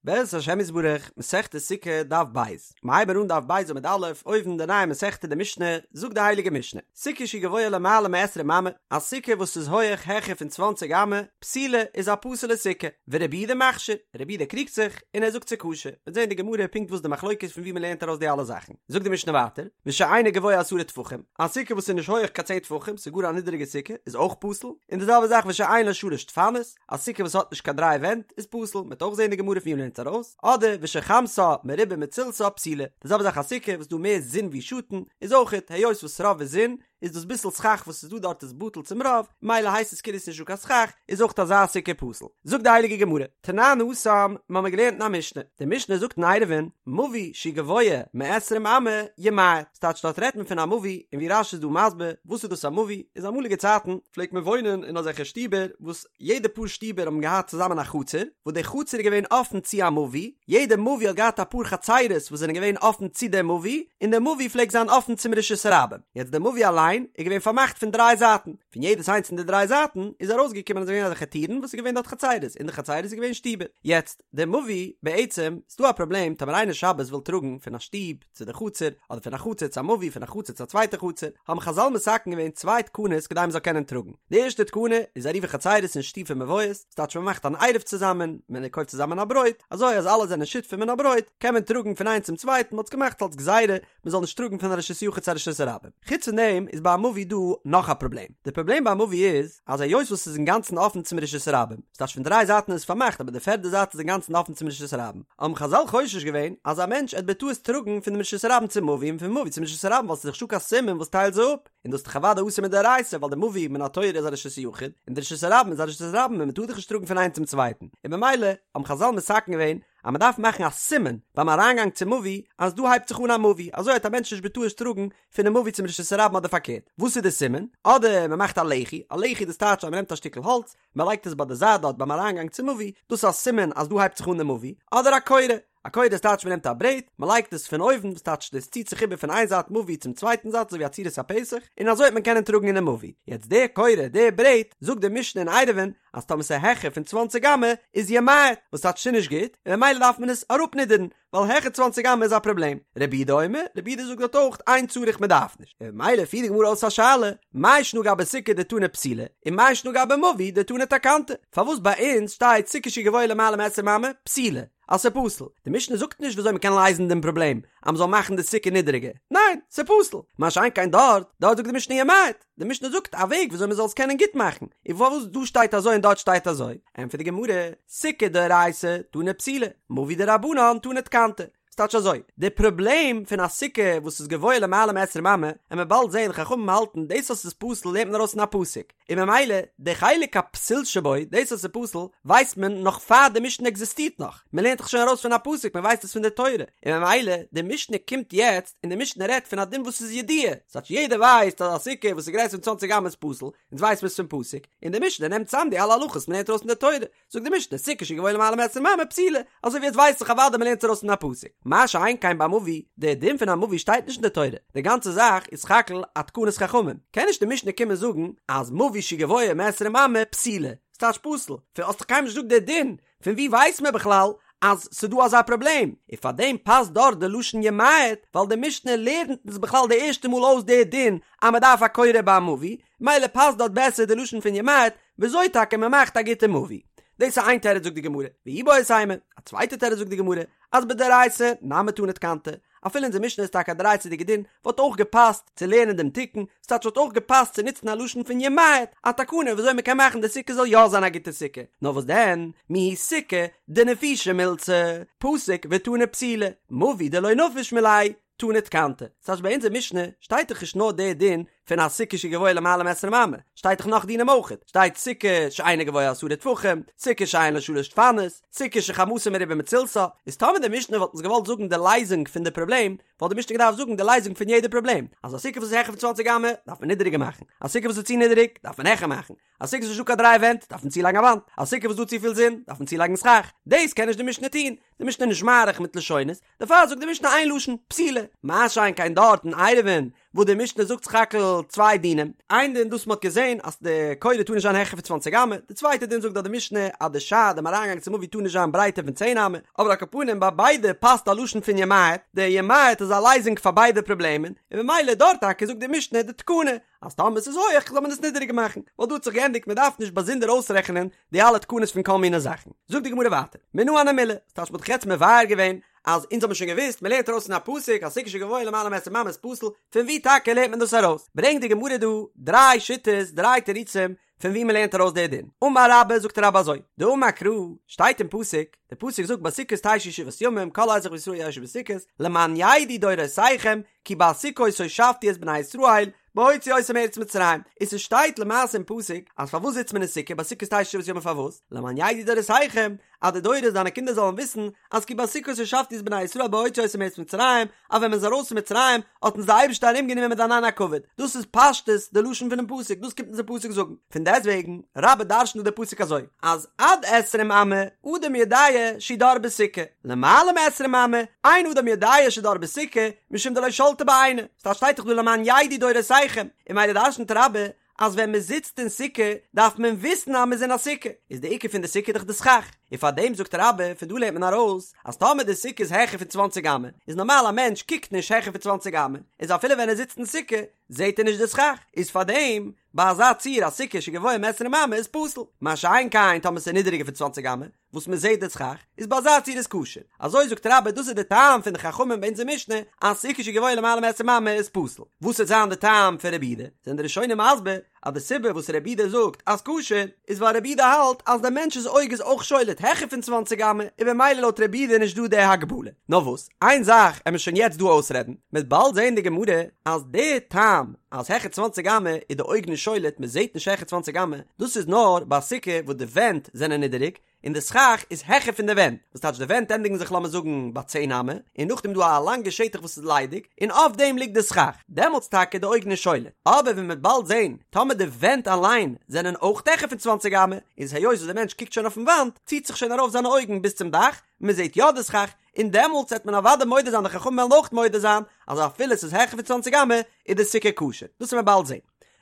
בעזרת השם יתברך, מסכת סוכה, דף ב'. מ'הייבן אן דף ב' עמוד א', אויבן די נייע מסכתא די משנה, זאגט די הייליגע משנה, סוכה שהיא גבוהה למעלה מעשרים אמה, א סוכה וואס איז הויעך העכער פון צוואנציג אמה, פסולה, איז א פסול'ע סוכה, ורבי יהודה מכשיר, רבי יהודה קריגט זיך, און ער זאגט ס'איז כשר, מ'וועט זען אין די גמרא פונקט וואס די מחלוקת פון ווי מ'לערנט ארויס די אלע זאכן. זאגט די משנה ווייטער, ושאינה גבוהה עשרה טפחים, א סוכה וואס איז נישט הויעך קיין צען טפחים, ס'איז גאר א נידעריגע סוכה, איז אויך פסול, און די זעלבע זאך ושאין לה שלש דפנות, א סוכה וואס האט נישט קיין דריי ווענט איז פסול, מ'וועט אויך זען אין די גמרא פון ווי מ'לערנט עס ארויס, אדער ושחמתה מרובה מצילתה פסולה, די זעלבע זאך א סוכה וואס איז דא מער זון ווי שאטן, איז אויכעט היות וואס רוב איז זון, איז דאס ביסל סכך וואס איז דא דארט איז בטל צום רוב, ממילא הייסט עס כאילו ס'איז נישט דא קיין סכך, איז אויך אזא סוכה פסול. זאגט די הייליגע גמרא, תנן התם, מ'האמיר געלערנט אין א משנה, די משנה זאגט אין עירובין, מבוי שהוא גבוה מעשרים אמה ימעט, ס'טייטש דארט רעדט מען פון א מבוי, און ווי רש"י איז דא מסביר, וואס איז דאס א מבוי, איז אמאליגע צייטן פלעגט מען וואוינען אין אזעלכע שטיבער וואס יעדע פאר שטיבער האבן געהאט צוזאמען א חצר, וואס די חצר איז געווען אפן צו א מבוי, יעדע מבוי האט געהאט אפאר חצרות וואס זענען געווען אפן צו די מבוי, און די מבוי פלעגט זיין אפן צום רשות הרבים. יעצט די מבוי אליין איז געווען פארמאכט פון דריי זייטן, פון יעדעס איינס פון די דריי זייטן איז ארויסגעקומען אז עס איז געווען אזעלכע טירן וואס איז געווען דארט חצרות, אין די חצרות איז געווען שטיבער. יעצט די מבוי, בעצם, ס'דא א פראבלעם טאמער איינער שבת וויל טראגן פון א שטוב צו די חצר, אדער פון א חצר צו א מבוי, פון א חצר צו א צווייטע חצר, האבן חז"ל מתקן געווען צוויי תקנות כדי מ'זאל קענען טראגן. די ערשטע תקנה איז עירובי חצרות און שיתופי מבואות, ס'טייטש מ'מאכט אן עירוב צוזאמען, מען קויפט צוזאמען א ברויט, אזוי אז אלע זענען שותפים אין א ברויט, קען מען טראגן פון איינס צום צווייטן, מ'האט עס געמאכט אלס גזירה מ'זאל נישט טראגן פון א רשות יחיד צו א רשות הרבים. חוץ פון דעם איז ביי א מבוי דא נאך א פראבלעם. די פראבלעם ביי א מבוי איז אז היות וואס ס'איז אינגאנצן אפן צום רשות הרבים, ס'טייטש פון דריי זייטן איז עס פארמאכט אבער די פערדע זייט איז אינגאנצן אפן צום רשות הרבים, האבן חז"ל חושש געווען אז א מענטש עט בטעות טראגן פון דעם רשות הרבים צום מבוי און פון מבוי צום רשות הרבים ווייל ס'איז דאך נישטא קיין סימן וואס טיילט זיי אפ, און דאס איז דאך אוודאי אסור מדאורייתא ווייל די מבוי מן התורה איז א רשות יחיד און די רשות הרבים איז א רשות הרבים און מ'טאר דאך נישט טראגן פון איינס צום צווייטן, און במילא האבן חז"ל מתקן געווען אז מען דארף מאכן א סימן ביים אריינגאנג צום מבוי אז דא הייבט זיך אן א מבוי, אזוי וועט א מענטש נישט בטעות טראגן פונעם מבוי צום רשות הרבים אדער פארקערט. וואס איז די סימן? אדער מען מאכט א לחי, א לחי דאס טייטש אז מען נעמט א שטיקל האלץ, מען לייגט עס ביי די זייט דארט ביים אריינגאנג צום מבוי, דאס איז א סימן אז דא הייבט זיך אן די מבוי, אדער א קורה, א קורה דאס טייטש מען נעמט א ברעט, מען לייגט עס פון אויבן, דאס טייטש דאס ציט זיך איבער פון איין זייט מבוי צום צווייטן זייט אזוי ווי א צורת הפתח, און אזוי וועט מען קענען טראגן אינעם מבוי. יעצט די קורה, די ברעט, זאגט די משנה אין עירובין, אז טאמער ס'איז העכער פון צוואנציג אמה איז ימעט, וואס טייטש ס'איז נישט גוט, און ממילא דארף מען עס אראפנידערן, ווייל העכער צוואנציג אמה איז א פראבלעם. רבי יהודה אומר, רבי יהודה זאגט דארט אויך אין צריך מ'דארף נישט. און ממילא פירט די גמרא אויס א שאלה, מאי שנא גבי סוכה דתנא פסולה, און מאי שנא גבי מבוי דתנא תקנתא? פארוואס ביי אונז שטייט סוכה שהיא גבוהה למעלה מעשרים אמה, פסולה? אז ס'איז פסול. די משנה זאגט נישט וויאזוי מ'קען לייזן דעם פראבלעם אז מ'זאל מאכן די סוכה נידעריגער. ניין, ס'איז פסול. מה שאין כן דארט, דארט זאגט די משנה ימעט. די משנה זאגט א וועג וויאזוי מ'זאל עס קענען גוט מאכן. און פארוואס דא שטייט אזוי און דארט שטייט אזוי? ענטפערט די גמרא, סוכה דאורייתא תנא פסולה, מבוי דרבנן תנא תקנתא. ס'טייטש אזוי, די פראבלעם פון א סוכה וואס איז גבוה למעלה מעשרים אמה, עמיר באלד זען חכמים האלטן דאס אז ס'איז פסול לערנט מען ארויס פון א פסוק, און ממילא די חלק הפסול שבו, דאס אז ס'איז פסול, ווייסט מען נאך פאר די משנה עקזיסטירט נאך, מען לערנט דאך שוין ארויס פון א פסוק, מען ווייסט עס פון די תורה, און ממילא די משנה קומט יעצט און די משנה רעדט פון א דין וואס איז ידוע, ס'טייטש יעדער ווייסט אז א סוכה וואס איז גרעסער פון צוואנציג אמה איז פסול, אונז ווייסט מען עס פון פסוק, און די משנה נעמט צאם די אלע הלכות מען לערנט ארויס פון די תורה, זאגט די משנה סוכה שגבוה למעלה מעשרים אמה פסולה, אזוי ווי עס ווייסט זיך אוודאי מ'לערנט ארויס פון א פסוק, מה שאין כן ביי מבוי, דער דין פון א מבוי שטייט נישט אין די תורה, די גאנצע זאך איז סך הכל א תקנת חכמים, קען נישט די משנה קומען זאגן אז מבוי שגבוה מעשרים אמה פסולה, ס'טייטש פסול, פון האסט דאך קיינמאל נישט געזאגט דער דין, פון ווי ווייסט מען בכלל אז ס'דא אזא פראבלעם, און פארדעם פאסט דארט די לשון ימעט, ווייל די משנה לערנט אונז בכלל די ערשטע מאל אויס די דין אז מ'דארף א קורה ביי א מבוי, מילא פאסט דארט בעסער די לשון פון ימעט, וויאזוי טאקע מען מאכט א גוטע מבוי. דאס איז איין תירוץ זאגט די גמרא, ואיבעית אימא, א צווייטע תירוץ זאגט די גמרא, אז בדאורייתא נמי תנא תקנתא, אפילו אונזער משנה איז טאקע א דאורייתא'דיגע דין, וואלט אויך געפאסט צו לערנען דעם תיקון, ס'טייטש וואלט אויך געפאסט צו נוצן א לשון פון ימעט, א תקנה וויאזוי מען קען מאכן די סוכה זאל יא זיין א גוטע סוכה, נאר וואס דען, מיהו סוכה דנפישא מילתא, פסיק ותנא פסולה, מבוי דלא נפיש מיליה, תנא תקנתא. ס'טייטש ביי אונזער משנה שטייט דאך נישט נאר דער דין פון א סוכה שגבוה למעלה מעשרים אמה, שטייט דאך נאך דינים אויכעט, שטייט סוכה שאינה גבוה עשרה טפחים, סוכה שאין לה שלש דפנות, סוכה שחמתה מרובה מצילתה, איז טאמער די משנה וואלט אונז געוואלט זאגן די לייזונג פון די פראבלעם, וואלט די משנה געדארפט זאגן די לייזונג פון יעדע פראבלעם, אז א סוכה וואס איז העכער פון צוואנציג אמה דארף מען נידעריגער מאכן, א סוכה וואס איז צו נידעריג דארף מען העכער מאכן, א סוכה וואס איז נישטא קיין דריי ווענט דארף מען צולייגן א וואנט, א סוכה וואס איז דא צופיל זון דארף מען צולייגן סכך, דאס קען נישט די משנה טון, די משנה איז נישט מאריך מיט לשונות, דערפאר זאגט די משנה איין לשון, פסולה, מה שאין כן דארט אין עירובין. וואס די משנה זאגט סך הכל צוויי דינים, איין דין דאס מ'האט געזען אז די קורה טאר נישט זיין העכער פון צוואנציג אמה, די צווייטע דין זאגט דארט די משנה אז די שער דעם אריינגאנג צום מבוי טאר נישט זיין ברייטער פון צען אמה, אבער על כל פנים ביי ביידע פאסט א לשון פון ימעט, די ימעט איז א לייזונג פאר ביידע פראבלעמען, און ממילא דארט טאקע זאגט די משנה די תקנה אז טאמער ס'איז הויעך זאל מען עס נידעריגער מאכן, ווייל דא האט זיך געענדיגט מ'דארף נישט באזונדער אויסרעכענען די אלע תקנות פון כל מיני זאכן. זאגט די גמרא ווייטער, מנא הני מילי, ס'טייטש מ'האט דאך יעצט מבאר געווען אז אונז האבן שוין געוואוסט, מ'לערנט ארויס פון א פסוק אז סוכה שגבוה למעלה מעשרים אמה איז פסול, פון ווי טאקע לערנט מען דאס ארויס? ברענגט די גמרא דא דריי שיטות, דריי תירוצים, פון ווי מ'לערנט ארויס די דין. אמר רבה, זאגט רבה אזוי, דאמר קרא, שטייט אין פסוק, די פסוק זאגט בסוכות תשבו שבעת ימים, כל אזרח בישראל ישבו בסוכות, למען ידעו דורותיכם, כי בסוכות הושבתי את בני ישראל, בהוציאי אותם מארץ מצרים, און ס'שטייט למעשה אין פסוק אז פארוואס זיצט מען אין סוכה בסוכות תשבו שבעת ימים פארוואס? למען ידעו דורותיכם אז די דורות דיינע קינדער זאלן וויסן אז כי בסוכות הושבתי את בני ישראל בהוציאי אותם מארץ מצרים אז ווען מען איז ארויס פון מצרים האט אונז די אייבערשטער ארום גענומען מיט ענני הכבוד, דאס איז פשטות די לשון פונעם פסוק, דאס קומט אונז די פסוק זאגן, פון דעסטוועגן רבה דרש'נט דא די פסוק אזוי אז עד עשרים אמה אדם יודע שהוא דר בסוכה, למעלה מעשרים אמה אין אדם יודע שדר בסוכה משום דלא שלטא ביה עיניה. ס'טייטש שטייט דאך דא למען ידעו דורותיכם, און ממילא דרש'נט רבה אז ווען מען זיצט אין סוכה דארף מען וויסן אז מען איז אין א סוכה, איז די עיקר פון די סוכה דאך די סכך, און פאר דעם זאגט רבה, פון דא לערנט מען ארויס אז טאמער די סוכה איז העכער פון צוואנציג אמה, איז נארמאל א מענטש קוקט נישט העכער פון צוואנציג אמה, איז אפילו ווען ער זיצט אין סוכה זעט ער נישט די סכך, איז פאר דעם ביי אזא ציור א סוכה שגבוה מעשרים אמה איז פסול, מה שאין כן טאמער ס'איז נידעריגער פון צוואנציג אמה, וואס מען זעט די סכך, איז ביי אזא ציור איז כשר. אזוי זאגט רבה דאס איז די טעם פון די חכמים ביי אונזער משנה אז סוכה שגבוה למעלה מעשרים אמה איז פסול. וואס וועט זיין די טעם פון רבי יהודה? זענען די ראשונים מסביר אז די סיבה וואס רבי יהודה זאגט אז כשר איז ווייל רבי יהודה האלט אז די מענטש'ס אויג איז אויך שולט העכער פון צוואנציג אמה און במילא לויט רבי יהודה איז נישט דא די הגבלה. נאר וואס? איין זאך עמיר שוין יעצט דא אויסרעדן, מ'עט באלד זעהן די גמרא אז די טעם אז העכער צוואנציג אמה איז די אויג נישט שולט מען זעהט נישט העכער צוואנציג אמה, דאס איז נאר ביי א סוכה וואס די ווענט זענען נידעריג און די סכך איז העכער פון די ווענט, וואס טייטש די ווענט ענדיגן זיך לאמיר זאגן ביי צען אמה, און נאכדעם איז דא א לאנגע שטח וואס איז ליידיג און אויף דעם ליגט די סכך, דעמאלטס טאקע איז די אויג נישט שולט, אבער ווי מ'עט באלד זעהן טאמער די ווענט אליין זענען אויך העכער פון צוואנציג אמה, איז היות וואס די מענטש קוקט שוין אויפן וואנט ציט זיך שוין ארויף זיינע אויגן ביז צום דאך, מען זעט יא די סכך, און דעמאלטס וועט מען אוודאי מודה זיין די חכמים וועלן אויך מודה זיין אז אפילו עס איז העכער פון צוואנציג אמה איז די סוכה כשר, דאס וועט מען באלד זען.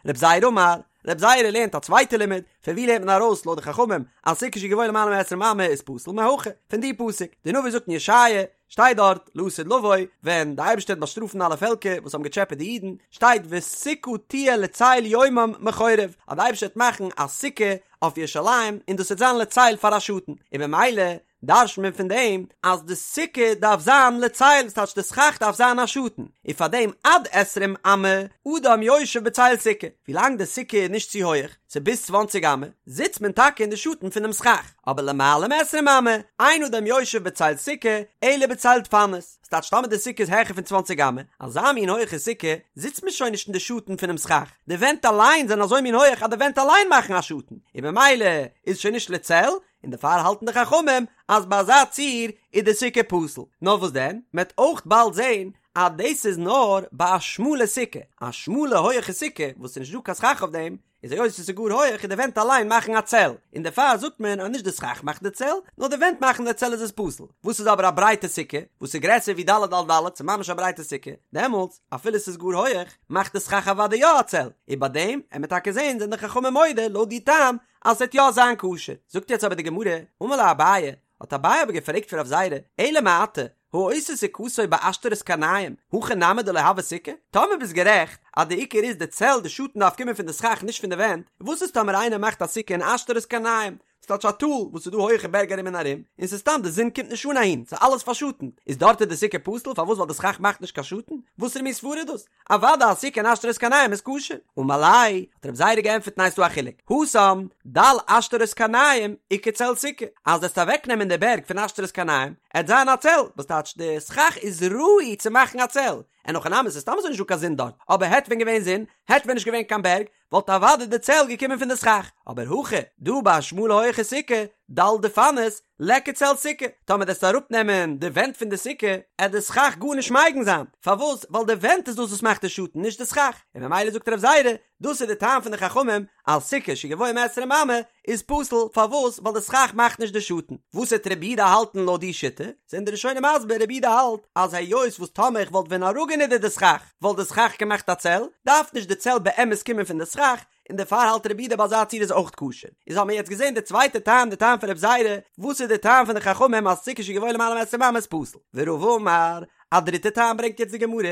רב זירא אמר, רב זירא לערנט א צווייטע לימוד, פון ווי לערנט מען ארויס לויט די חכמים אז סוכה שגבוה למעלה מעשרים אמה איז פסול מהכא, פון די פסוק, די נביא זאגט אין ישעיה, שטייט דארט לעתיד לבוא, ווען די אייבערשטער וועט באשטראפן אלע פעלקער וואס האבן געטשעפעט די אידן, שטייט וסוכה תהיה לצל יומם מחורב, אז די אייבערשטער וועט מאכן א סוכה אויף ירושלים און דאס וועט זיין לצל פאר א שאטן, און במילא דרש'נט מען פון דעם אז די סוכה דארף זיין לצל, ס'טייטש די סכך דארף זיין א שאטן, און פאר דעם עד עשרים אמה אדם יושב בצל סוכה, ווילאנג די סוכה איז נישט צו הויעך, ס'איז ביז צוואנציג אמה, זיצט מען טאקע אין די שאטן פונעם סכך, אבער למעלה מעשרים אמה, אין אדם יושב בצל סוכה, אלא בצל דפנות, ס'טייטש טאמער די סוכה איז העכער פון צוואנציג אמה, אזא מין הויעכע סוכה, זיצט מען שוין נישט אין די שאטן פונעם סכך, די ווענט אליין זענען אזוי מין הויעך אז די ווענט אליין מאכן א שאטן, און במילא איז שוין נישט לצל, און דערפאר האלטן די חכמים אז ביי אזא ציור איז די סוכה פסול. נאר וואס דען, מען וועט אויך באלד זען אז דאס איז נאר ביי א שמאלע סוכה, א שמאלע הויעכע סוכה וואס איז נישט דא קיין סכך אויף דעם, איז היות עס איז גאר הויעך און די ווענט אליין מאכן א צל, און דערפאר זאגט מען אז נישט די סכך מאכט די צל, נאר די ווענט מאכן די צל איז עס פסול. וואס איז אבער א ברייטע סוכה וואס איז גרעסער ווי ד' על ד', ס'איז ממש א ברייטע סוכה, דעמאלטס אפילו עס איז גאר הויעך, מאכט די סכך אוודאי יא א צל, און ביי דעם עמיר טאקע זען זענען די חכמים מודה לויט די טעם אז ס'וועט יא זיין כשר. זאגט יעצט אבער די גמרא, אמר ליה אביי, האט אביי אבער געפרעגט פון רב זירא, אלא מעתה, העושה סוכתו בעשתרות קרניים, הכי נמי דלא הוי סוכה? טאמער ביסט גערעכט אז די עיקר איז די צל, די שאטן דארף קומען פון די סכך נישט פון די ווענט, וואס איז טאמער איינער מאכט א סוכה אין עשתרות קרניים, ס'טייטש א טאל וואס ס'איז דא הויעכע בערג ארום און ארום, און ס'איז סתם די זון קומט נישט אן אהין, ס'איז אלעס פארשאטנט, איז דארט איז די סוכה פסול, פארוואס ווייל די סכך מאכט נישט קיין שאטן? וואסערע מין סברה איז דאס? אוודאי א סוכה אין עשתרות קרניים איז כשר. אמר ליה, האט רב זירא געענטפערט ניין ס'דא א חילוק, התם, דל עשתרות קרניים, איכא צל סוכה, אז וועסט אוועקנעמען די בערג פון עשתרות קרניים, עט זיין א צל, וואס טייטש די סכך איז ראוי צו מאכן א צל, אין הכי נמי ס'איז סתם אזוי נישט דא קיין זון דארט, אבער העט ווען געווען זון, העט ווען נישט געווען קיין בערג, וואלט אוודאי די צל געקומען פון די סכך, אבער הכא, דא ביי א שמאלע הויעכע סוכה, דל דפנות, ליכא צל סוכה, טאמער דו וועסט אראפנעמען די ווענט פון די סוכה, עט די סכך גארנישט מגין זיין, פארוואס? ווייל די ווענט איז דאס וואס מאכט די שאטן, נישט די סכך, און ממילא זאגט רב זירא, דאס איז די טעם פון די חכמים אז סוכה שגבוה מעשרים אמה איז פסול, פארוואס? ווייל די סכך מאכט נישט די שאטן. וואס וועט רבי יהודה האלטן לויט די שיטה? זענען די ראשונים מסביר, רבי יהודה האלט אז היות וואס טאמער איך וואלט ווען אראפגענידערט די סכך וואלט די סכך געמאכט א צל, דארף נישט די צל באמת קומען פון די סכך, און דערפאר האלט רבי יהודה ביי אזא ציור איז אויך כשר. איז האבן מיר יעצט געזען די צווייטע טעם, די טעם פון רב זירא, וואס איז די טעם פון די חכמים אז סוכה שגבוה למעלה מעשרים אמה איז פסול. ורבא אמר, א דריטע טעם ברענגט יעצט די גמרא,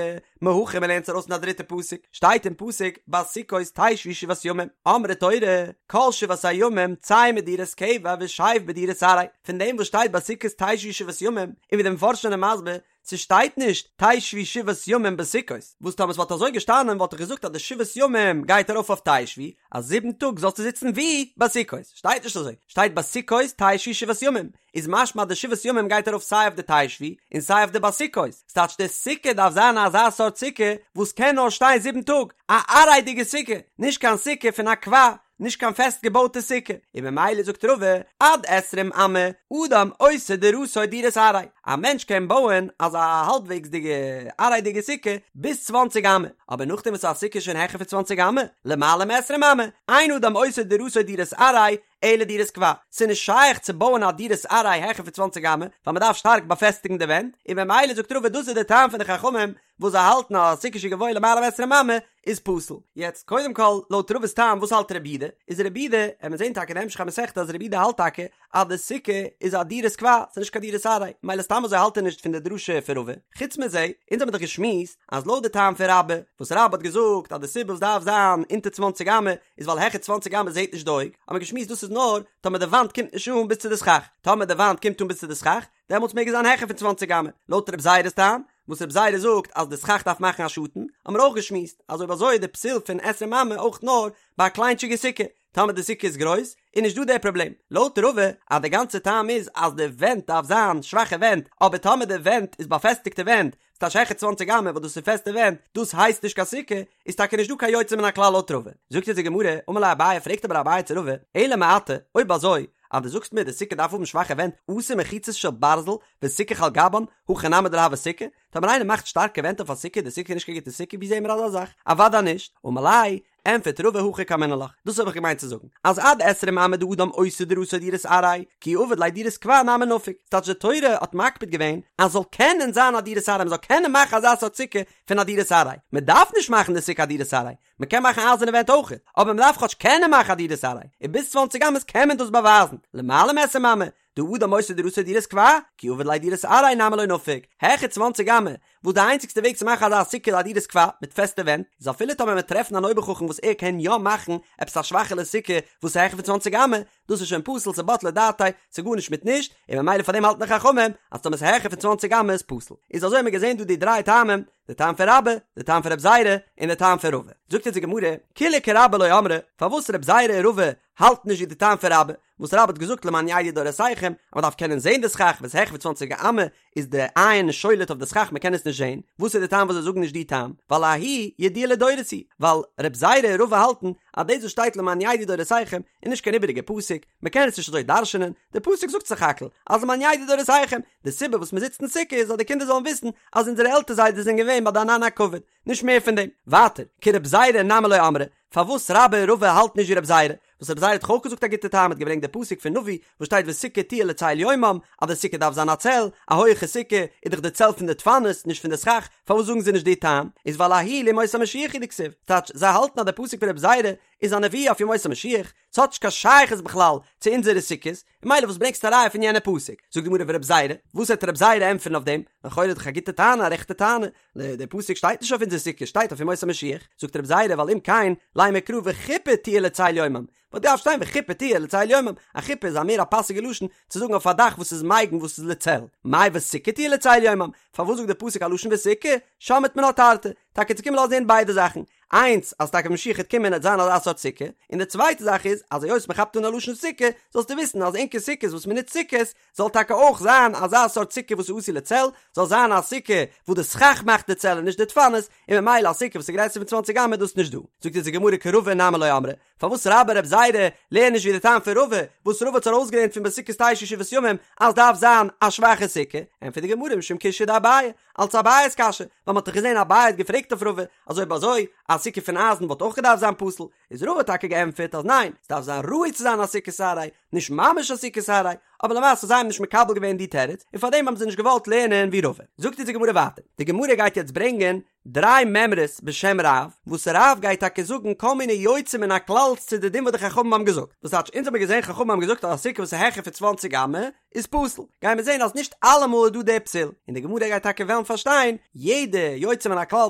מהכא מ'לערנט עס ארויס אין א דריטע פסוק, שטייט אין פסוק בסוכות תשבו שבעת ימים, אמרה תורה, כל שבעת הימים צא מדירת קבע ושב בדירת עראי, פון דעם וואס שטייט בסוכות תשבו שבעת ימים, און ווי די מפרשים זענען מסביר, ס'שטייט נישט תשבו שבעת ימים בסוכות, וואס טאמער ס'וואלט אזוי געשטאנען וואלט איך געזאגט אז די שבעת ימים גייט ארויף אויף תשבו, אז זיבן טאג זאלסטו זיצן ווי? בסוכות, שטייט נישט אזוי, שטייט בסוכות תשבו שבעת ימים, איז משמע אז די שבעת ימים גייט ארויף סיי אויף די תשבו און סיי אויף די בסוכות, ס'טייטש די סוכה דארף זיין אזא סארט סוכה וואס קען נאר שטיין זיבן טאג, א עראי'דיגע סוכה, נישט קיין סוכה פון א קבע, נישט קיין פעסט געבויטע סוכה, און ממילא זאגט רבא, עד עשרים אמה אדם עושה דירתו דירת עראי, א מענטש קען בויען אזא האלבוועגסדיגע עראי'דיגע סוכה ביז צוואנציג אמה, אבער נאכדעם וואס א סוכה איז שוין העכער פון צוואנציג אמה, למעלה מעשרים אמה, אין אדם עושה דירתו דירת עראי, אלא דירת קבע, ס'איז נישט שייך צו בויען א דירת עראי העכער פון צוואנציג אמה, ווייל מ'דארף שטארק באפעסטיגן די ווענט, און ממילא זאגט רבא דאס איז די טעם פון די חכמים וואס זיי האלטן אז א סוכה שגבוה למעלה מעשרים אמה איז פסול. יעצט קודם כל לויט רבא'ס טעם וואס האלט רבי יהודה? איז רבי יהודה, עמיר זעהן טאקע אין המשך המסכתא אז רבי יהודה האלט טאקע אז די סוכה איז א דירת קבע, ס'איז נישט קיין דירת עראי, ממילא סתם אזוי האלט ער נישט פון די דרשה פון רבא. חוץ מזה, אונז האמיר דאך געשמועסט אז לויט די טעם פון רבה, וואס רבה האט געזאגט אז די סיבה וואס דארף זיין אונטער צוואנציג אמה איז ווייל העכער צוואנציג אמה זעהט נישט די אויג, האמיר געשמועסט דאס איז נאר טאמער די וואנט קומט נישט אן ביז צו די סכך, טאמער די וואנט קומט אן ביז צו די סכך, דעמאלטס מעג עס זיין העכער פון צוואנציג אמה, לויט רב זירא'ס טעם, וואס רב זירא זאגט אז די סכך דארף מאכן א שאטן, האמיר אויך געשמועסט אז אויב אזוי איז די פסול פון עשרים אמה אויך נאר ביי א קליינטשיגע סוכה, טאמער די סוכה איז גרויס איז נישט דא דער פראבלעם, לויט רבא אז די גאנצע טעם איז אז די ווענט דארף זיין שוואכע ווענט, אבער טאמער די ווענט איז באפעסטיגטע ווענט, ס'טייטש העכער צוואנציג אמה וואס דאס איז פעסטע ווענט, דאס הייסט נישט קיין סוכה, איז טאקע נישט דא קיין יוצא מן הכלל לויט רבא. זאגט אונז די גמרא, אמר ליה אביי, פרעגט אבער אביי צו רבא, אלא מעתה, אויב אזוי, אז דו זאגסט מיר די סוכה דארף האבן שוואכע ווענט, אתי מחיצות של ברזל וסיכך על גבן, הכי נמי דלא הוי סוכה, טאמער איינער מאכט שטארקע ווענט אויף א סוכה, די סוכה איז נישט קיין גוטע סוכה, ווי זעהן מיר אזא זאך? אוודאי נישט, אמר ליה, ענטפערט רבא הכי קאמינא לך, דאס האב איך געמיינט צו זאגן, אז עד עשרים אמה דאדם עושה דירתו דירת עראי, כי עביד ליה דירת קבע נמי נפיק, ס'טייטש די תורה האט מקפיד געווען אז ס'זאל קענען זיין א דירת עראי, מ'זאל קענען מאכן אזא סארט סוכה פון א דירת עראי, מ'דארף נישט מאכן די סוכה א דירת עראי, מ'קען מאכן אייזערנע ווענט אויכעט, אבער מ'דארף כאטש קענען מאכן א דירת עראי, און ביז צוואנציג אמות קען מען דאס באווייזן, למעלה מעשרים אמה, דאדם עושה דירתו דירת קבע, כי עביד ליה דירת עראי נמי לא נפיק, העכער צוואנציג אמה, וואס די איינציגסטע וועג צו מאכן אזא סוכה איז א דירת קבע, מיט פעסטע ווענט, איז אפילו טאמער מ'וועט טרעפן אן אויבערחכם וואס ער קען יא מאכן עפעס א שוואכעלע סוכה וואס איז העכער פון צוואנציג אמה, דאס איז שוין פסול ס'בטלה דעתיה, ס'איז גארנישט מיט נישט, און ממילא פאר דעם האלטן די חכמים אז טאמער ס'איז העכער פון צוואנציג אמה איז פסול. איז אזוי האט מען געזען דא די דריי טעמים, די טעם פון רבה, די טעם פון רב זירא, און די טעם פון רבא. זאגט אונז די גמרא, כולהו כרבה לא אמרי, פארוואס רב זירא און רבא האלטן נישט ווי די טעם פון רבה, וואס רבה האט געזאגט למען ידעו דורותיכם, אז מען דארף קענען זען די סכך, ווען ס'איז העכער פון צוואנציג אמה איז די עין שולט אויף די סכך מען קען עס נישט זען, וואס איז די טעם וואס זיי זאגן נישט די טעם? ווייל ההיא ידיעה לדורות היא, ווייל רב זירא און רבא האלטן אז דאס וואס שטייט למען ידעו דורותיכם איז נישט קיין איבעריגע פסוק, מען קען עס נישט אזוי דרש'נען, די פסוק זאגט סך הכל אז למען ידעו דורותיכם, די סיבה וואס מען זיצט אין סוכה איז אז די קינדער זאלן וויסן אז אונזערע עלטער זיידעס זענען געווען ביי די ענני הכבוד, נישט מער פון דעם. ווייטער, כרב זירא נמי לא אמרי, פארוואס רבה און רבא האלטן נישט ווי רב זירא? וואס רב זירא האט דאך אויך געזאגט א גוטע טעם, האט געברענגט די פסוק פון נביא וואס שטייט וסוכה תהיה לצל יומם, אז די סוכה דארף זיין א צל, א הויעכע סוכה איז דאך די צל פון די דפנות, נישט פון די סכך, פארוואס זאגן זיי נישט די טעם? איז ווייל ההיא לימות המשיח הוא דכתיב, טייטש, זיי האלטן אז די פסוק פון רב זירא איז א נבואה אויף ימות המשיח, ס'האט נישט קיין שייכות בכלל צו אונזערע סוכות, און ממילא וואס ברענגסטו א ראיה פון יענע פסוק? זאגט די גמרא ורב זירא, וואס וועט רב זירא ענטפערן אויף דעם? לכאורה איז דאך א גוטע טענה, א רעכטע טענה, דער פסוק שטייט נישט אויף אונזער סוכה, שטייט אויף ימות המשיח, זאגט רב זירא ווייל אם כן, לימא קרא וחופה תהיה לצל יומם, וואלט געדארפט שטיין וחופה תהיה לצל יומם, א חופה איז א מער א פאסיגע לשון צו זאגן אויף א דאך וואס איז מגין וואס איז לצל, מאי וסוכה תהיה לצל יומם, פארוואס זאגט דער פסוק א לשון וסוכה, שמעת מינה תרתי, טאקע צו קומען לאזן הערן ביידע זאכן, איינס אז טאקע משיח העט קומען העט זיין אזא סארט סוכה, און די צווייטע זאך איז אז היות מען כאפט אן א לשון סוכה, זאלסטו וויסן אז ענקער סוכות וואס מען נוצט סוכות, זאל טאקע אויך זיין אזא סארט סוכה וואס איז עשוי לצל, זאל זיין א סוכה וואס די סכך מאכט די צל און נישט די דפנות, און ממילא א סוכה וואס איז גרעסער פון צוואנציג אמה איז דאס נישט דא. זאגט אונז די גמרא כרבא נמי לא אמרי, פארוואס רבה רב זירא לערנען נישט ווי די טעם פון רבא, וואס רבא האט ארויסגעלערנט פון בסוכות תשבו שבעת ימים אז דארף זיין א שוואכע סוכה, ענטפערט די גמרא משום קושיא דאביי, אלס אביי'ס קשיא, ווייל מ'האט דאך געזען אביי האט געפרעגט אויף רבא, אז אויב אזוי א סוכה פון אייזן וואלט אויך געדארפט זיין פסול, איז רבא האט טאקע געענטפערט אז ניין, ס'דארף זיין ראוי צו זיין א סוכת עראי, נישט ממש א סוכת עראי, אבער למעשה זיי האבן נישט מקבל געווען די תירוץ, און פארדעם האבן זיי נישט געוואלט לערנען ווי רבא. זאגט אונז די גמרא ווייטער, די גמרא גייט יעצט ברענגען דריי מימרות בשם רב, וואס רב גייט טאקע זאגן כל מיני יוצא מן הכלל'ס צו די דין וואס די חכמים האבן געזאגט, וואס טייטש אונז האבן געזען חכמים האבן געזאגט אז א סוכה וואס איז העכער פון צוואנציג אמה איז פסול, גייען מיר זען אז נישט אלעמאל איז דא די פסול, און די גמרא גייט טאקע וועלן פארשטיין יעדע יוצא מן הכלל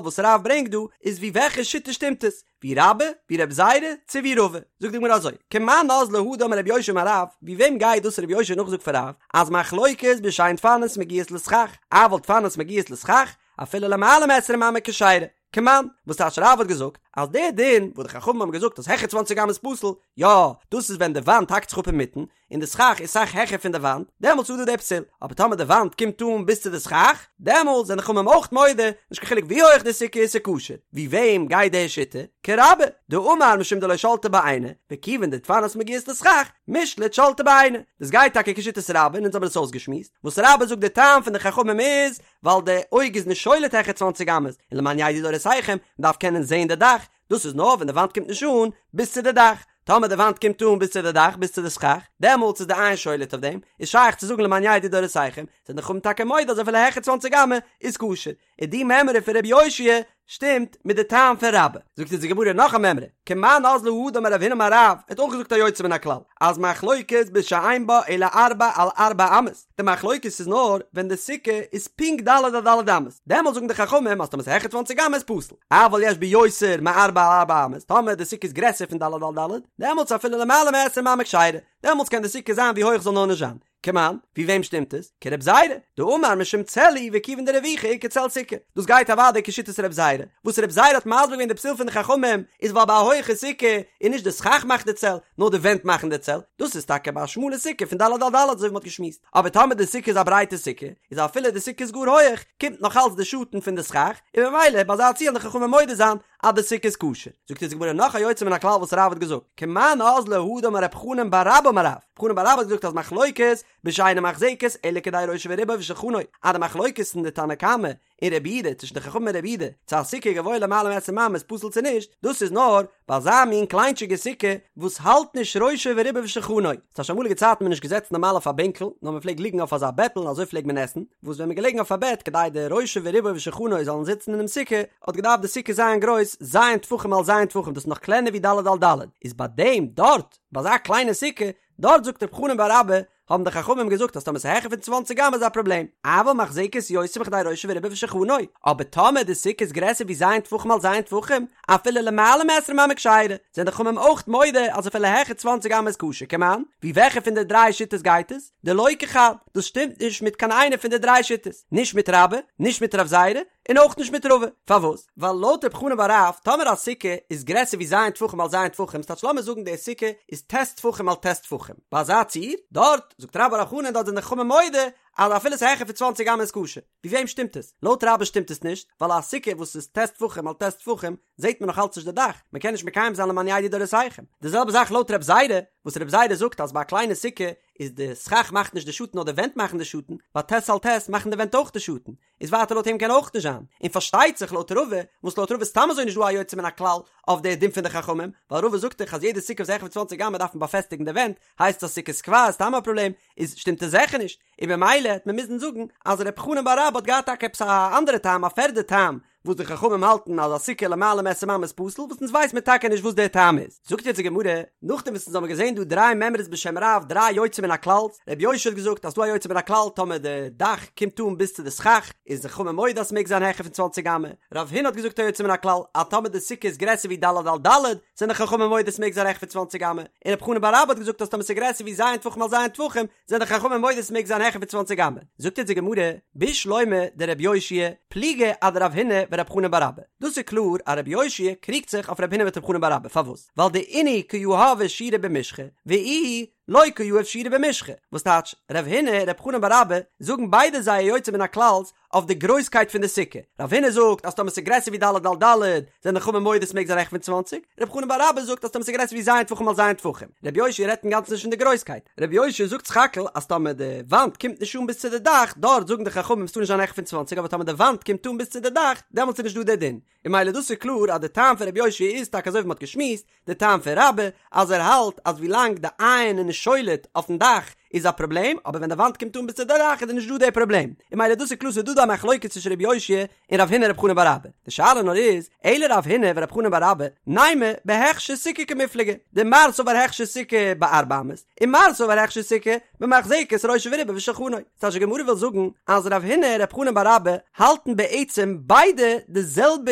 וואס רב ברענגט דא איז ווי וועלכע שיטה שטימט עס, ווי רבה, ווי רב זירא, צו ווי רבא. זאגט די גמרא אזוי, כמאן אזלא הא דאמר רבי יאשיה אמר רב, ווי וועם גייט דאס רבי יאשיה נאכזאגט פון רב, אז מחלוקת בשאין דפנות מגיעות לסכך, אבל דפנות מגיעות לסכך, אפילו למעלה מעשרים אמה כשרה. כמאן, וואס טייטש רב האט געזאגט, אז דער דין וואס די חכמים האבן געזאגט אז העכער צוואנציג אמה איז פסול, יא, דאס איז ווען די וואנט האקט זיך אפ אינמיטן, און די סכך איז סאך העכער פון די וואנט, דעמאלטס איז דא די פסול, אבער טאמער די וואנט קומט אן ביז צו די סכך, דעמאלטס זענען חכמים אויך מודה, נישט קיין חילוק ווי הויעך די סוכה איז ס'כשר. ווי וועם גייט די שיטה? כרבה, דאמר משום דלא שלטא ביה עינא, וכיוון דדפנות מגיעות לסכך, מישלט שלטא ביה עינא. דאס גייט טאקע כשיטת רבה און אונז האבן עס אויסגעשמועסט, וואס רבה זאגט די טעם פון די חכמים איז, ווייל די אויג איז נישט שולט העכער צוואנציג אמות, און למען ידעו דורותיכם, מ'דארף קענען זען די דאך, דאס איז נאר ווען די וואנט קומט נישט אן ביז צו די דאך, טאמער די וואנט קומט אן ביז צו די דאך, ביז צו די סכך, דעמאלטס איז די עין שולט אויף דעם, איז שייך צו זאגן למען ידעו דורותיכם, זענען די חכמים טאקע מודה אז אפילו העכער צוואנציג אמה איז כשר, און די מימרא פון רבי יאשיה שטימט מיט די טעם פון רבה. זאגט אונז די גמרא נאך א מימרא, כמאן אזלא הא דאמר רב הונא אמר רב, ער האט אויך געזאגט א יוצא מן הכלל, אז מחלוקת בשאין בה אלא ארבע על ארבע אמות, די מחלוקת איז נאר ווען די סוכה איז פונקט ד' על ד' אמות, דעמאלטס זאגן די חכמים אז טאמער ס'איז העכער צוואנציג אמה איז פסול, אבל יש בה יותר מארבע על ארבע אמות, טאמער די סוכה איז גרעסער פון ד' על ד', דעמאלטס אפילו למעלה מעשרים אמה כשרה, דעמאלטס קען די סוכה זיין ווי הויך זאל נאר נישט זיין. כמאן, ווי וועם שטימט עס? כרב זירא, דאמר משום צל הוא וכיוון דרוויחא איכא צל סוכה. דאס גייט אוודאי כשיטת רב זירא, וואס רב זירא האט מסביר געווען די פסול פון די חכמים איז ווייל ביי א הויכע סוכה איז נישט די סכך מאכט די צל, נאר די ווענט מאכן די צל, דאס איז טאקע ביי א שמאלע סוכה פון ד' על ד' אזוי ווי מ'האט געשמועסט, אבער טאמער די סוכה איז א ברייטע סוכה, איז אפילו די סוכה איז גאר הויעך, קומט נאך אלץ די שאטן פון די סכך, און ממילא ביי אזא ציור וועלן די חכמים מודה זיין אז די סוכה איז כשר. זאגט אונז די גמרא נאך א יוצא מן הכלל וואס רב האט געזאגט, כמאן אזלא הא דאמר רב חנן בר רבה אמר רב, רב חנן בר רבה האט געזאגט אז מחלוקת בשאינה מחזקת אלא כדי ראשו ורובו ושולחנו, אז די מחלוקת אין די תנא קמא און רבי יהודה, צווישן די חכמים און רבי יהודה, צו א סוכה גבוה למעלה מעשרים אמה איז פסול צו נישט, דאס איז נאר ביי אזא מין קליינטשיגע סוכה וואס האלט נישט ראשו ורובו ושולחנו. ס'טייטש אמאליגע צייטן מען נישט געזעצן נארמאל אויף א בענקל, נאר מען פלעגט ליגן אויף אזא בעטל און אזוי פלעגט מען עסן, וואס ווען מען געלעגן אויף א בעט כדי די ראשו ורובו ושולחנו זאלן זיצן אינעם סוכה, האט געדארפט די סוכה זיין גרויס ז' טפחים על ז' טפחים, דאס איז נאך קלענער ווי ד' על ד', איז ביי דעם דארט, ביי אזא קליינע סוכה, דארט זאגט רב חנן בר רבה, האבן די חכמים געזאגט אז טאמער ס'איז העכער פון צוואנציג אמה איז א פראבלעם, אבל מחזקת יותר מכדי ראשו ורובו ושולחנו, אבער טאמער די סוכה איז גרעסער ווי ז' טפחים על ז' טפחים, אפילו למעלה מעשרים אמה כשרה, זענען די חכמים אויך מודה אז אפילו העכער צוואנציג אמה איז כשר, כמאן, ווי וועלכע פון די דריי שיטות גייט עס? דלא כחד, דאס שטימט נישט מיט קיין איינע פון די דריי שיטות, נישט מיט רבה, נישט מיט רב זירא, און אויך נישט מיט רבא, פארוואס? ווייל לויט רב חנן בר רב, טאמער א סוכה איז גרעסער ווי ז' טפחים על ז' טפחים, ס'טייטש לאמיר זאגן די סוכה איז ט' טפחים על ט' טפחים, ביי אזא ציור, דארט, זאגט רבה בר בר חנה דארט זענען די חכמים מודה אז אפילו ס'איז העכער פון צוואנציג אמה איז כשר. ווי וועם שטימט עס? לויט רבה שטימט עס נישט, ווייל א סוכה וואס איז ט' טפחים על ט' טפחים זעט מען נאך אלץ נישט די דאך, מען קען נישט מקיים זיין למען ידעו דורותיכם. די זעלבע זאך לויט רב זירא, וואס רב זירא זאגט אז ביי א קליינע סוכה איז די סכך מאכט נישט די שאטן נאר די ווענט מאכן די שאטן, ביי ט' על ט' מאכן די ווענט אויך די שאטן, איז ווייטער לויט אים קען אויך נישט זיין, און פארשטייט זיך לויט רבא, וואס לויט רבא איז סתם אזוי נישט דא א יוצא מן הכלל אויף די דין פון די חכמים, ווייל רבא זאגט דאך אז יעדע סוכה וואס איז העכער פון צוואנציג אמה דארף מען באפעסטיגן די ווענט, הייסט עס א סוכת קבע איז סתם א פראבלעם, איז שטימט עס זיכער נישט, און במילא העט מען מוזן זאגן אז ר' חנן בר רבה האט געהאט טאקע עפעס א אנדערע טעם א פערדע טעם וואס די חכמים האלטן אז א סוכה למעלה מעשרים אמה איז פסול וואס אונז ווייס מיר טאקע נישט וואס דער טעם איז. זאגט יעצט די גמרא, נאכדעם וואס אונז האבן געזען דא דריי מימרות בשם רב דריי יוצא מן הכלל'ס, רבי יאשיה האט געזאגט אז ס'דא א יוצא מן הכלל טאמער די דאך קומט אן ביז צו די סכך איז די חכמים מודה אז ס'מעג זיין העכער פון צוואנציג אמה, רב הונא האט געזאגט א יוצא מן הכלל אז טאמער די סוכה איז גרעסער ווי ד' על ד' זענען די חכמים מודה ס'מעג זיין העכער פון צוואנציג אמה, און רב חנן בר רבה האט געזאגט אז טאמער ס'איז גרעסער ווי ז' טפחים על ז' טפחים זענען די חכמים מודה ס'מעג זיין העכער פון צוואנציג אמה, זאגט אונז די גמרא, בשלמא דרבי יאשיה פליגא אדרב הונא ורב חנן בר אבא, דאס איז קלאר אז רבי יאשיה קריגט זיך אויף רב הונא מיט רב חנן בר אבא, פארוואס? ווייל דאינהו קא יהבי שיעורא במשחא, ואיהו לא קא יהיב שיעורא במשחא, וואס טייטש, רב הונא און רב חנן בר אבא זאגן ביידע זייער יוצא מן הכלל'ס. אויף די גרויסקייט פון די סוכה, רב הונא זאגט אז טאמער ס'איז גרעסער ווי ד' על ד' זענען די חכמים מודה ס'מעג זיין העכער פון צוואנציג, רב חנן בר אבא זאגט אז טאמער ס'איז גרעסער ווי ז' טפחים על ז' טפחים. רבי יאשיה רעדט אינגאנצן נישט פון די גרויסקייט, רבי יאשיה זאגט סך הכל אז טאמער די וואנט קומט נישט אן ביז צו די דאך, דארט זאגן די חכמים ס'טאר נישט זיין העכער פון צוואנציג אבער טאמער די וואנט קומט אן ביז צו די דאך דעמאלטס איז נישט דא די דין, און ממילא דאס איז קלאר אז די טעם פון רבי יאשיה איז טאקע אזוי ווי מ'האט געשמועסט, די טעם פון רבה אז ער האלט אז ווילאנג די עין איז נישט שולט אויפן דאך איז א פראבלעם, אבער ווען די וואנט קומט אן ביז צו די דאך איז נישט דא די פראבלעם, און ממילא דאס איז קלאר ס'איז דא דא א מחלוקת צווישן רבי יאשיה און רב הונא רב חנן בר אבא, די שאלה נאר איז, אלא רב הונא ורב חנן בר אבא, נימא בהכשר סוכה קמיפלגי, דמר סבר הכשר סוכה בארבע אמות, און מר סבר הכשר סוכה במחזקת ראשו ורובו ושולחנו. ס'טייטש די גמרא וויל זאגן אז רב הונא און רב חנן בר אבא האלטן בעצם ביידע די זעלבע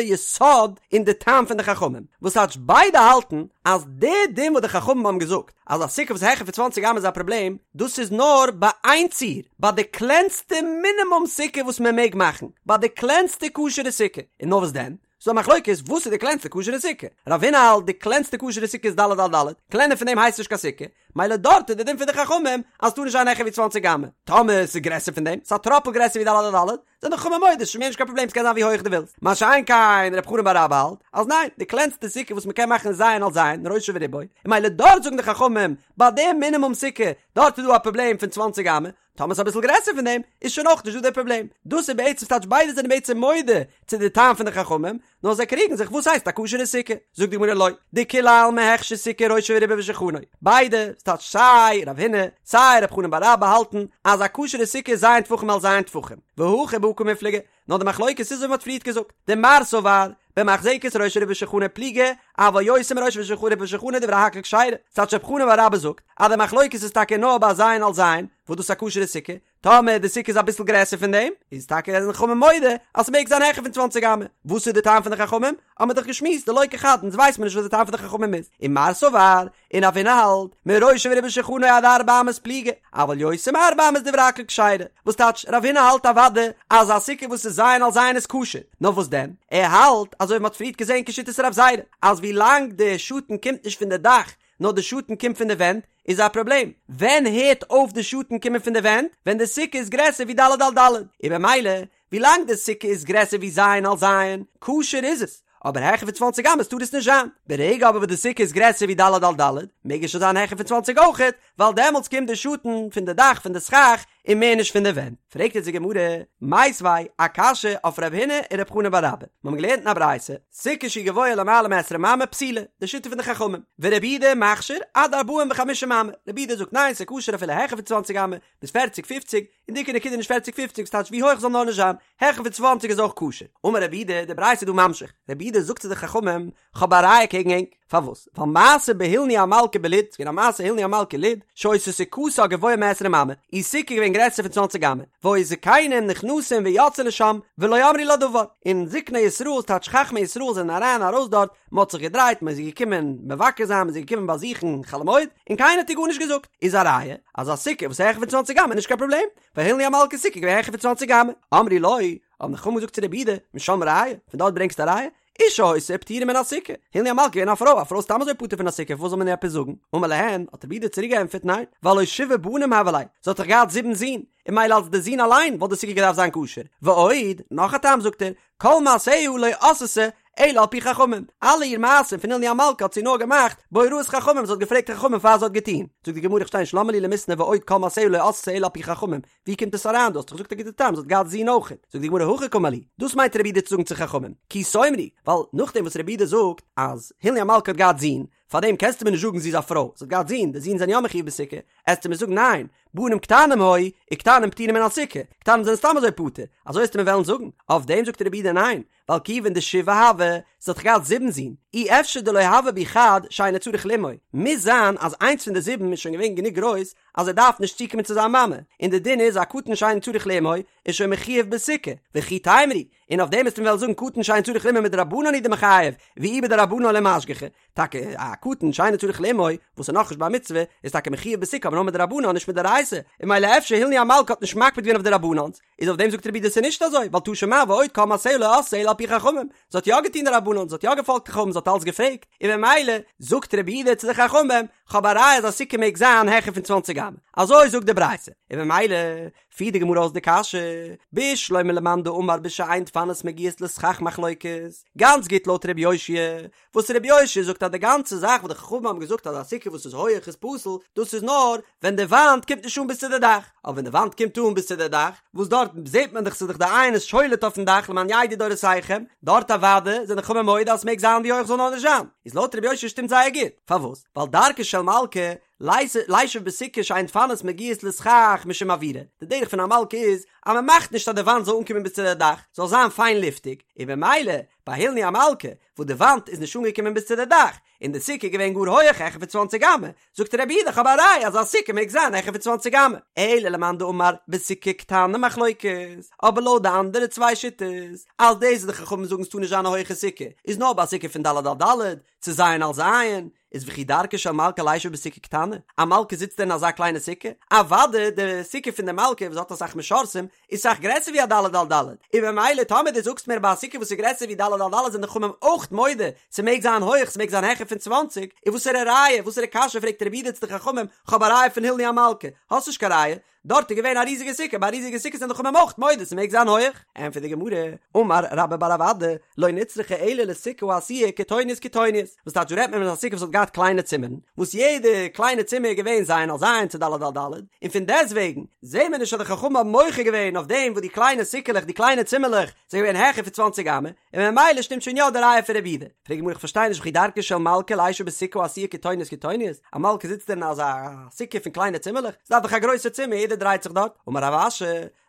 יסוד אין די טעם פון די חכמים, וואס טייטש ביידע האלטן אז די דין וואס די חכמים האבן געזאגט אז א סוכה וואס איז העכער פון צוואנציג אמה איז א פראבלעם, דאס איז נאר ביי איין ציור, ביי די קלענסטע מינימום סוכה וואס מען מעג מאכן, ביי די קלענסטע כשר'ע סוכה, און נאר וואס דען? ס'דא א מחלוקת וואס איז די קלענסטע כשר'ע סוכה, רב הונא האלט די קלענסטע כשר'ע סוכה איז ד' על ד', קלענער פון דעם הייסט נישט קיין סוכה, מילא דארט איז די דין פון די חכמים אז ס'טאר נישט זיין העכער ווי צוואנציג אמה, טאמער ס'איז גרעסער פון דעם, ס'איז א טראפל גרעסער ווי ד' על ד', זענען די חכמים מודה ס'איז מער נישט קיין פראבלעם ס'קען זיין ווי הויעך דו ווילסט, מה שאין כן רב חנן בר אבא האלט אז ניין, די קלענסטע סוכה וואס מ'קען מאכן איז ז' על ז', ראשו ורובו, און מילא דארט זאגן די חכמים ביי די מינימום סוכה, דארט איז דא א פראבלעם פון צוואנציג אמה, טאמער ס'איז אביסל גרעסער פון דעם, איז שוין אויך נישט דא דער פראבלעם. דאס איז בעצם ס'טייטש ביידע זענען בעצם מודה צו די טעם פון די חכמים, נאר זיי קריגן זיך וואס הייסט א כשר'ע סוכה. זאגט די גמרא לא, דכולי עלמא הכשר סוכה ראשו ורובו ושולחנו. ביידע, ס'טייטש סיי רב הונא, סיי רב חנן בר אבא האלטן אז א כשר'ע סוכה איז ז' טפחים על ז' טפחים. והכא בהא קמיפלגי, נאר די מחלוקת איז ווי מ'האט פריערט געזאגט, דמר סבר במחזקת ראשו ורובו ושולחנו פליגי, אבל יותר מראשו ורובו ושולחנו דברי הכל כשרה, ס'טייטש רב חנן בר אבא זאגט אז די מחלוקת איז טאקע נאר ביי ז' על ז', וואס דאס איז א כשר'ע סוכה, טאמער די סוכה איז אביסל גרעסער פון דעם, איז טאקע זענען חכמים מודה אז ס'מעג זיין העכער פון צוואנציג אמה, וואס איז די טעם פון די חכמים? האבן מיר דאך געשמועסט דלא כחד, אונז ווייסט מיר נישט וואס די טעם פון די חכמים איז, ומר סבר, און רב הונא האלט, מראשו ורובו ושולחנו עד ארבע אמות פליגי, אבל יותר מארבע אמות דברי הכל כשרה, וואס טייטש, רב הונא האלט אוודאי אז א סוכה וואס איז ז' על ז' איז כשר, נאר וואס דען, ער האלט, אזוי ווי מ'האט פריערט געזען כשיטת רב זירא, אז ווי לאנג די שאטן קומט נישט פון די דאך, נאר די שאטן קומט פון די ווענט, איז א פראבלעם, ווען הערט אויף די שאטן קומען פון די ווענט? ווען די סוכה איז גרעסער ווי ד' על ד', און במילא ווילאנג די סוכה איז גרעסער ווי ז' על ז', כשר איז עס, אבער העכער פון צוואנציג אמות טאר עס נישט זיין. ברגע אבער וואס די סוכה איז גרעסער ווי ד' על ד', מעג עס שוין זיין העכער פון צוואנציג אויכעט, ווייל דעמאלטס קומט די שאטן פון די דאך פון די סכך און מער נישט פון די ווענט. פרעגט יעצט די גמרא, מיתיבי, א קשיא אויף רב הונא און רב חנן בר אבא. מיר האבן געלערנט אין א ברייתא, סוכה שהיא גבוהה למעלה מעשרים אמה פסולה, די שיטה פון די חכמים, ורבי יהודה מכשיר עד ארבעים וחמישים אמה, רבי יהודה זאגט ניין ס'איז כשר אפילו העכער פון צוואנציג אמה, ביז פערציג פופציג, און די עיקר נקודה איז נישט פערציג פופציג ס'טייטש ווי הויך זאל נאר נישט זיין, העכער פון צוואנציג איז אויך כשר. אמר רבי יהודה, די ברייתא איז דא ממשיך, רבי יהודה זאגט צו די חכמים, כ'האב א ראיה קעגן ענק, פארוואס? ווייל מעשה בהילני המלכה בלוד, ס'געווען א מעשה הילני המלכה לוד, שהיתה סוכתה גבוהה מעשרים אמה, איר סוכה איז געווען גרעסער פון צוואנציג אמה, והיו זקנים נכנסים ויוצאים לשם, ולא אמרו לה דבר, און זקני ישראל, ס'טייטש חכמי ישראל זענען אריין ארויס דארט, מ'האט זיך געדרייט, מ'איז געקומען מבקר זיין, מ'איז געקומען באזוכן חול המועד, און קיינער האט איר גארנישט געזאגט, איז א ראיה אז א סוכה וואס איז העכער פון צוואנציג אמה איז נישט קיין פראבלעם, ווייל הילני המלכה'ס סוכה איז געווען העכער פון צוואנציג אמה. אמרו לו, האבן די חכמים געזאגט צו רבי יהודה, משם ראיה, פון דארט ברענגסטו א ראיה? אשה היתה ופטורה מן הסוכה, הילני המלכה איז געווען א פרוי, א פרוי איז סתם אזוי פטור פון א סוכה, פארוואס זאל מען איר עפעס זאגן? אמר להן, האט רבי יהודה צוריק געענטפערט, ניין, והלא שבעה בנים הוו ליה, זי האט דאך געהאט זיבן זין, און מילא אלס די זין אליין וואלט די סוכה געדארפט זיין כשר, ועוד, נאך א טעם זאגט ער, כל מעשיה לא עשתה אלא על פי חכמים, אלע איר מעשים פון הילני המלכה האט זי נאר געמאכט בהוראת חכמים, זי האט געפרעגט חכמים פאר זי האט געטון, זאגט די גמרא איך פארשטיי נישט למה לי למיתנא ועוד כל מעשיה לא עשתה אלא על פי חכמים, ווי קומט עס אריין דו האסט דאך געזאגט א גוטע טעם זי האט געהאט זין אויכעט, זאגט די גמרא הכי קאמר להו, דאס מיינט רבי יהודה צו זאגן צו חכמים, כי תאמרו, ווייל נאכדעם וואס רבי יהודה זאגט אז הילני המלכה האט געהאט זין, פארדעם קענסטו מיר נישט זאגן זי איז א פרוי, זי האט געהאט זין, די זין זענען יא מחויב בסוכה, עסטו מיר זאגן ניין, בנים קטנים היו, וקטנים פטורים מן הסוכה, קטנים זענען סתם אזוי פטור, אזוי עסטו מיר וועלן זאגן, אויף דעם זאגט רבי יהודה ניין, ווייל כיוון דשבעה הוו, זי האט דאך געהאט זיבן זין, אי אפשר דלא הוה בהו חד שאינו צריך לאמו, מוז זיין אז איינס פון די זיבן איז שוין געווען גענוג גרויס אז ער דארף נישט צוקומען צו זיין מאמע, און די דין איז א קטן שאינו צריך לאמו איז שוין מחויב בסוכה, וכי תימרו, און אויף דעם עסטו מיר וועלן זאגן קטן שאינו צריך לאמו מדרבנן הוא דמיחייב, ואי בדרבנן לא משגחי, טאקע א קטן שאינו צריך לאמו וואס איז נאכנישט בר מצוה איז טאקע מחויב בסוכה אבער נאר מדרבנן נישט מדאורייתא, און מילא אפשר הילני המלכה האט נישט מקפיד געווען אויף די רבנן'ס, איז אויף דעם זאגט רבי יהודה ס'איז נישט אזוי, ווייל תא שמע ועוד כל מעשיה לא עשתה אלא על פי חכמים, זי האט יא געטון די רבנן, זי האט יא געפאלגט חכמים, זי האט אלץ געפרעגט, און ממילא זאגט רבי יהודה צו די חכמים, כ'האב א ראיה אז א סוכה מעג זיין העכער פון צוואנציג אמה, אזוי זאגט די ברייתא, און ממילא פירט די גמרא אויס די קשיא, בשלמא למאן דאמר בשאין דפנות מגיעות לסכך מחלוקת, גאנץ גוט לויט ר' יאשיה, וואס ר' יאשיה זאגט אז די גאנצע זאך וואס די חכמים האבן געזאגט אז א סוכה וואס איז הויעך איז פסול, דאס איז נאר ווען די וואנט קומט נישט אן ביז צו די דאך, אבער ווען די וואנט קומט אן ביז צו די דאך, וואס דארט זעט מען דאך ס'איז דאך די עין איז שולט אויפן דאך למען ידעו דורותיכם, דארט אוודאי זענען די חכמים מודה אז ס'מעג זיין ווי הויך זאל נאר נישט זיין, איז לויט ר' יאשיה שטימט זייער גוט, פארוואס? ווייל דרכה של מלכה לישב בסוכה שאין דפנות מגיעות לסכך משום אוירא, די דרך פון א מלכה איז אז מען מאכט נישט אז די וואנט זאל אנקומען ביז צו די דאך, זאל זיין פיין לופטיג, און במילא ביי הילני המלכה וואס די וואנט איז נישט אנגעקומען ביז צו די דאך, און די סוכה איז געווען גאר הויעך העכער פון צוואנציג אמה, זאגט רבי יהודה איך האב א ראיה אז א סוכה מעג זיין העכער פון צוואנציג אמה, אלא למאן דאמר בסוכה קטנה מחלוקת, אבער לויט די אנדערע צוויי שיטות, אז דאס וואס די חכמים זאגן ס'טאר נישט זיין א הויכע סוכה, איז נאר ביי א סוכה פון ד' על ד', צו ז' על ז', איז וכי דרכה של מלכה לישב בסוכה קטנה? א מלכה זיצט דען אין אזא קליינע סוכה? אוודאי די סוכה פון די מלכה וואס האט אסאך משרתים איז סאך גרעסער ווי א ד' על ד', און ממילא טאמער דו זאגסט מיר ביי א סוכה וואס איז גרעסער ווי ד' על ד' זענען די חכמים אויך מודה ס'מעג זיין הויך ס'מעג זיין העכער פון צוואנציג, איז וואסערע ראיה וואסערע קשיא פרעגט רבי יהודה צו די חכמים כ'האב א ראיה פון הילני המלכה? האסט נישט קיין ראיה, דארט איז געווען א ריזיגע סוכה, ביי א ריזיגע סוכה זענען די חכמים אויך מודה ס'מעג זיין הויעך. ענטפערט די גמרא, אמר רבה בר רב אדא, לא נצרכה אלא לסוכה העשויה קיטוניות קיטוניות, וואס טייטש דא רעדט מען פון א סוכה וואס האט געהאט קליינע צימערן, וואס יעדע קליינע צימער איז געווען ז' על ז' צו ד' על ד', און פון דעסטוועגן זעהן מיר נישט אז די חכמים האבן מוחה געווען אויף דעם וואס די קליינע סוכה'לעך די קליינע צימערלעך זענען געווען העכער פון צוואנציג אמה, און ממילא שטימט שוין יא די ראיה פון רבי יהודה. פרעגט די גמרא איך פארשטיי נישט וכי דרכה של מלכה לישב בסוכה העשויה קיטוניות קיטוניות, א מלכה זיצט דען אין אזא סוכה פון קליינע צימערלעך? ס'דארף דאך א גרויסע צימער יעדער דרייט זיך דארט. אמר רב אשי,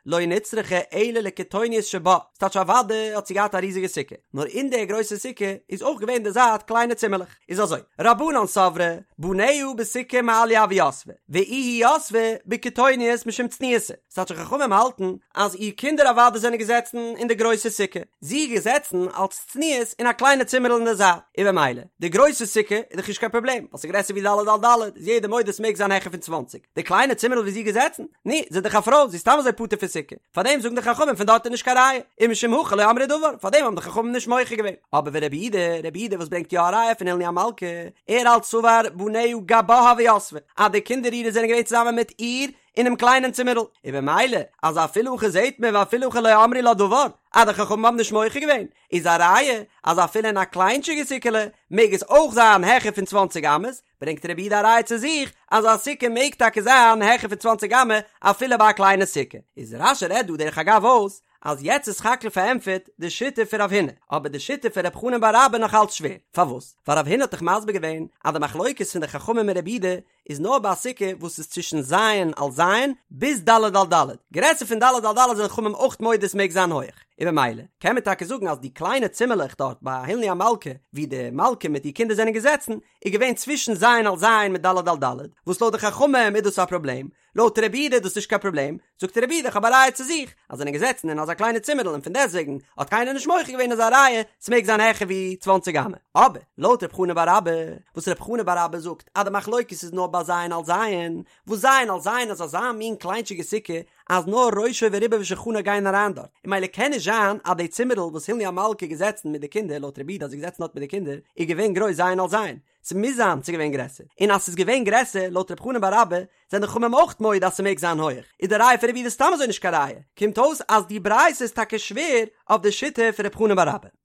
לא נצרכה אלא לקיטוניות שבה, ס'טייטש אוודאי האט זי געהאט א ריזיגע סוכה, נאר אין די גרויסע סוכה איז אויך געווען די זייט קליינע צימערלעך. איז אזוי, רבנן סברי, בניה בסוכה מעליא הוו יתבי, ואיהי יתבה בקיטוניות משום צניעותא. ס'טייטש חכמים האלטן אז איר קינדער אוודאי זענען געזעצן אין די גרויסע סוכה, זי איז געזעצן אלס צניעות אין א קליינע צימערל אין די זייט, און במילא די גרויסע סוכה איז דאך נישט קיין פראבלעם ווייל ס'איז גרעסער ווי ד' על ד' איז יעדער מודה ס'מעג זיין העכער פון צוואנציג, די קליינע צימערל ווי זי איז געזעצן, נו, זי איז דאך א פרוי, זי איז סתם אזוי פטור פון סוכה, פארדעם זאגן די חכמים פון דארט איז נישט קיין ראיה, ומשום הכי לא אמרו דבר, פארדעם האבן די חכמים נישט מוחה געווען. אבער ורבי יהודה, רבי יהודה וואס ברענגט יא א ראיה פון הילני המלכה, ער האלט סבר בניה גבה הוו יתבי, אז די קינדער אירע זענען געווען צוזאמען מיט איר, אינעם קליינעם צימערל, און במילא אז אפילו הכי זעהט מען ואפילו הכי לא אמרו לה דבר, אז די חכמים האבן נישט מוחה געווען, איז א ראיה אז אפילו אין א קליינטשיגע סוכה'לע מעג עס אויך זיין העכער פון צוואנציג אמות, ברענגט רבי יהודה א ראיה צו זיך אז א סוכה מעג טאקע זיין העכער פון צוואנציג אמה אפילו ביי א קליינע סוכה. איז רש"י רעדט דא דרך אגב אויס אז יעצט איז סך הכל פארענטפערט די שיטה פון רב הונא, אבער די שיטה פון רב חנן בר אבא נאך אלץ שווער, פארוואס? ווייל רב הונא האט דאך מסביר געווען אז די מחלוקת פון די חכמים און רבי יהודה איז נאר ביי א סוכה וואס איז צווישן ז' על ז' ביז ד' על ד', גרעסער פון ד' על ד' זענען חכמים אויך מודה עס מעג זיין הויעך, און במילא קען מען טאקע זאגן אז די קליינע צימערלעך דארט ביי הילני המלכה ווי די מלכה מיט איר קינדער זענען געזעצן איז געווען צווישן ז' על ז' מיט ד' על ד', וואס לויט די חכמים איז דאס א פראבלעם, לויט רבי יהודה איז דאס נישט קיין פראבלעם, זאגט רבי יהודה איך האב א ראיה צו זיך, אז זענען געזעצן אין אזא קליינע צימערל און פון דעסטוועגן האט קיינער נישט מוחה געווען איז א ראיה ס'מעג זיין העכער ווי צוואנציג אמה, אבער לויט רב חנן בר אבא, וואס רב חנן בר אבא זאגט אז די מחלוקת איז נאר ביי ז' על ז', וואס ז' על ז' איז אזא מין קליינטשיגע סוכה אז נאר ראשו ורובו ושולחנו גייען אריין דארט, און ממילא קען נישט זיין אז די צימערל וואס הילני המלכה איז געזעצן מיט די קינדער לויט רבי יהודה אז זי איז געזעצן דארט מיט די קינדער איז געווען גרויס ז' על ז', ס'מוז זיין ס'איז געווען גרעסער, און אז ס'איז געווען גרעסער, לויט רב חנן בר אבא, זענען די חכמים אויך מודה אז ס'מעג זיין הויעך, איז די ראיה פון רבי יהודה סתם אזוי נישט קיין ראיה, קומט אויס אז די ברייתא איז טאקע שווער אויף די שיטה פון רב חנן בר אבא.